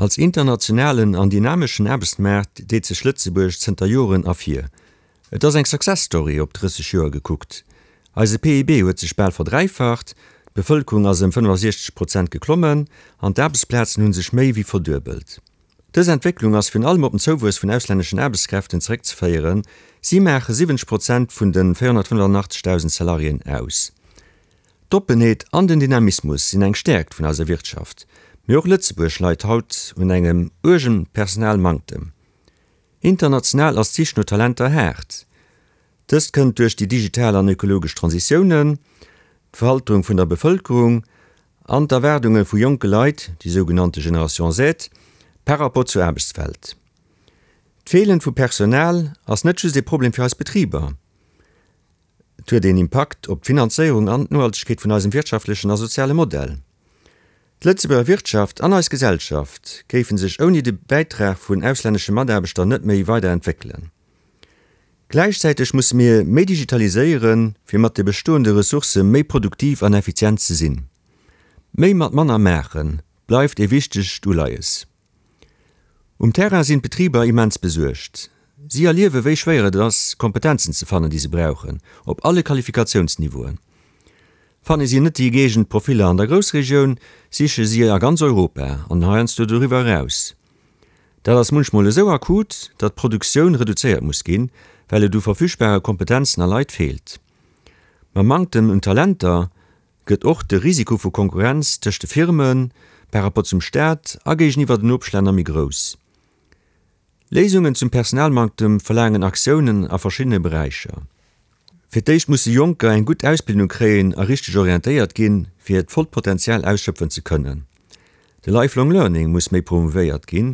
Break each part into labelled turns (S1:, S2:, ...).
S1: Als internationalen an dynameschen Aarbechtsmaart deet sech Lëtzebuerg zënter Joren ervir. Et ass eng Success Story op 30 Joer gekuckt. Eise PIB huet sech bal verdräifacht, d'Bevëlkerung ass ëm 65 Prozent geklommen an d'Aarbechtsplazen hu sech méi wéi verduebelt. Dës Entwécklung ass virun allem op den Zouwuess vun auslänneschen Aarbechtskräften zeréckzeféieren, si maache 70 Prozent vun de 485.000 Salariéen aus. D'Oppenheet an den Dynamismus sinn eng Stäerkt vun eiser Wirtschaft, mee och Lëtzebuerg leit haut un engem uergen Personalmanktem. International ass d'Sich no Talenter haart. Dëst kënnt duerch déi digital an ökologesch Transitiounen, d'Veralterung vun der Bevëlkerung an d'Erwaardunge vu jonke Leit, déi sougenannte Generation Z, par rapport zur Aarbechtswelt. D'Feelen vu Personal ass net just ee Problem fir eis Betriber. Et huet een Impakt op d'Finanzéierung an d'Nohaltegkeet vun eisem wirtschaftlechen a soziale Modell. D'Lëtzebuerger Wirtschaft an eis Gesellschaft géife sech ouni de Bäitrag vun auslännesche Mataarbechter net méi weider entwéckelen. Gläichzäiteg musse mir méi digitaliséieren, fir mat de bestoende Ressourcë méi produktiv an effizient ze sinn. Méi mat manner maache bleift ee wichtegt Uleies. Um Terrain sinn d'Betriber immens besuergt. Si erliewe wéi schwéier et ass, Kompetenzen ze fannen, déi se brauchen, op alle Qualifikatiounsniveauen. Fanne si net déi gëeegent Profiller an der Groussregioun, siche si a ganz Europa an heiansdo doriwwer eraus. Dat ass munchmol esou akut, datt d'Produktioun reduzéiert muss ginn, well et u verfügbare Kompetenzen a Leit feelt. Mam Manktem un Talenter gëtt och de Risiko vu Konkurrenz tëscht de Firme par rapport zum Staat a géigeniwwer den Nopeschlänner méi grouss. Léisungen zum Personalmanktem verlaangen Aktiounen a verschiddene Beräicher. Fir d'éischt musse Jonker eng gutt Ausbildung kréien a richteg orientéiert ginn, fir hiert vollt Potenzial ausschöpfen ze kënnen. De Lifelong Learning muss méi promouvéiert ginn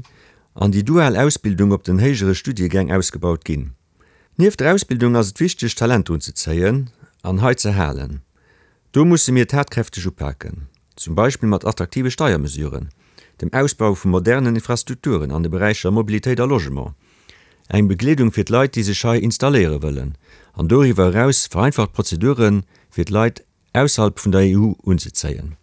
S1: an déi dual Ausbildung op den héijere Studiegäng ausgebaut ginn. Nieft der Ausbildung ass et wichteg, Talenter unzezéien an hei ze halen. Do musse mir tatkräfteg upaken, zum Beispill mat attraktive Steiermesuren, dem Ausbau vu modernen Infrastrukturen an de Beräicher Mobilitéit a Logement, eng Begleedung fir d'Leit, déi sech hei installéiere wëllen, an doriwwer eraus vereinfacht Prozedure fir d'Leit ausserhalb vun der EU unzezéien.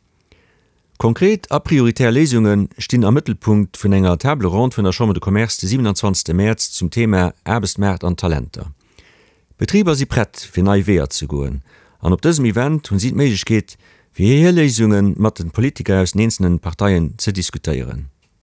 S1: Konkret a prioritär Léisunge stinn am Mëttelpunkt vun enger Table ronde vun der Chambre de Commerce de 27 Mäerz zum Thema Aarbechtsmaart an Talenter. D'Betriber si prett fir nei Weeër ze goen an op dësem Event hunn si d'Méiglechkeet fir hir Léisunge mat de Politiker aus den eenzelnen Parteien ze diskutéieren.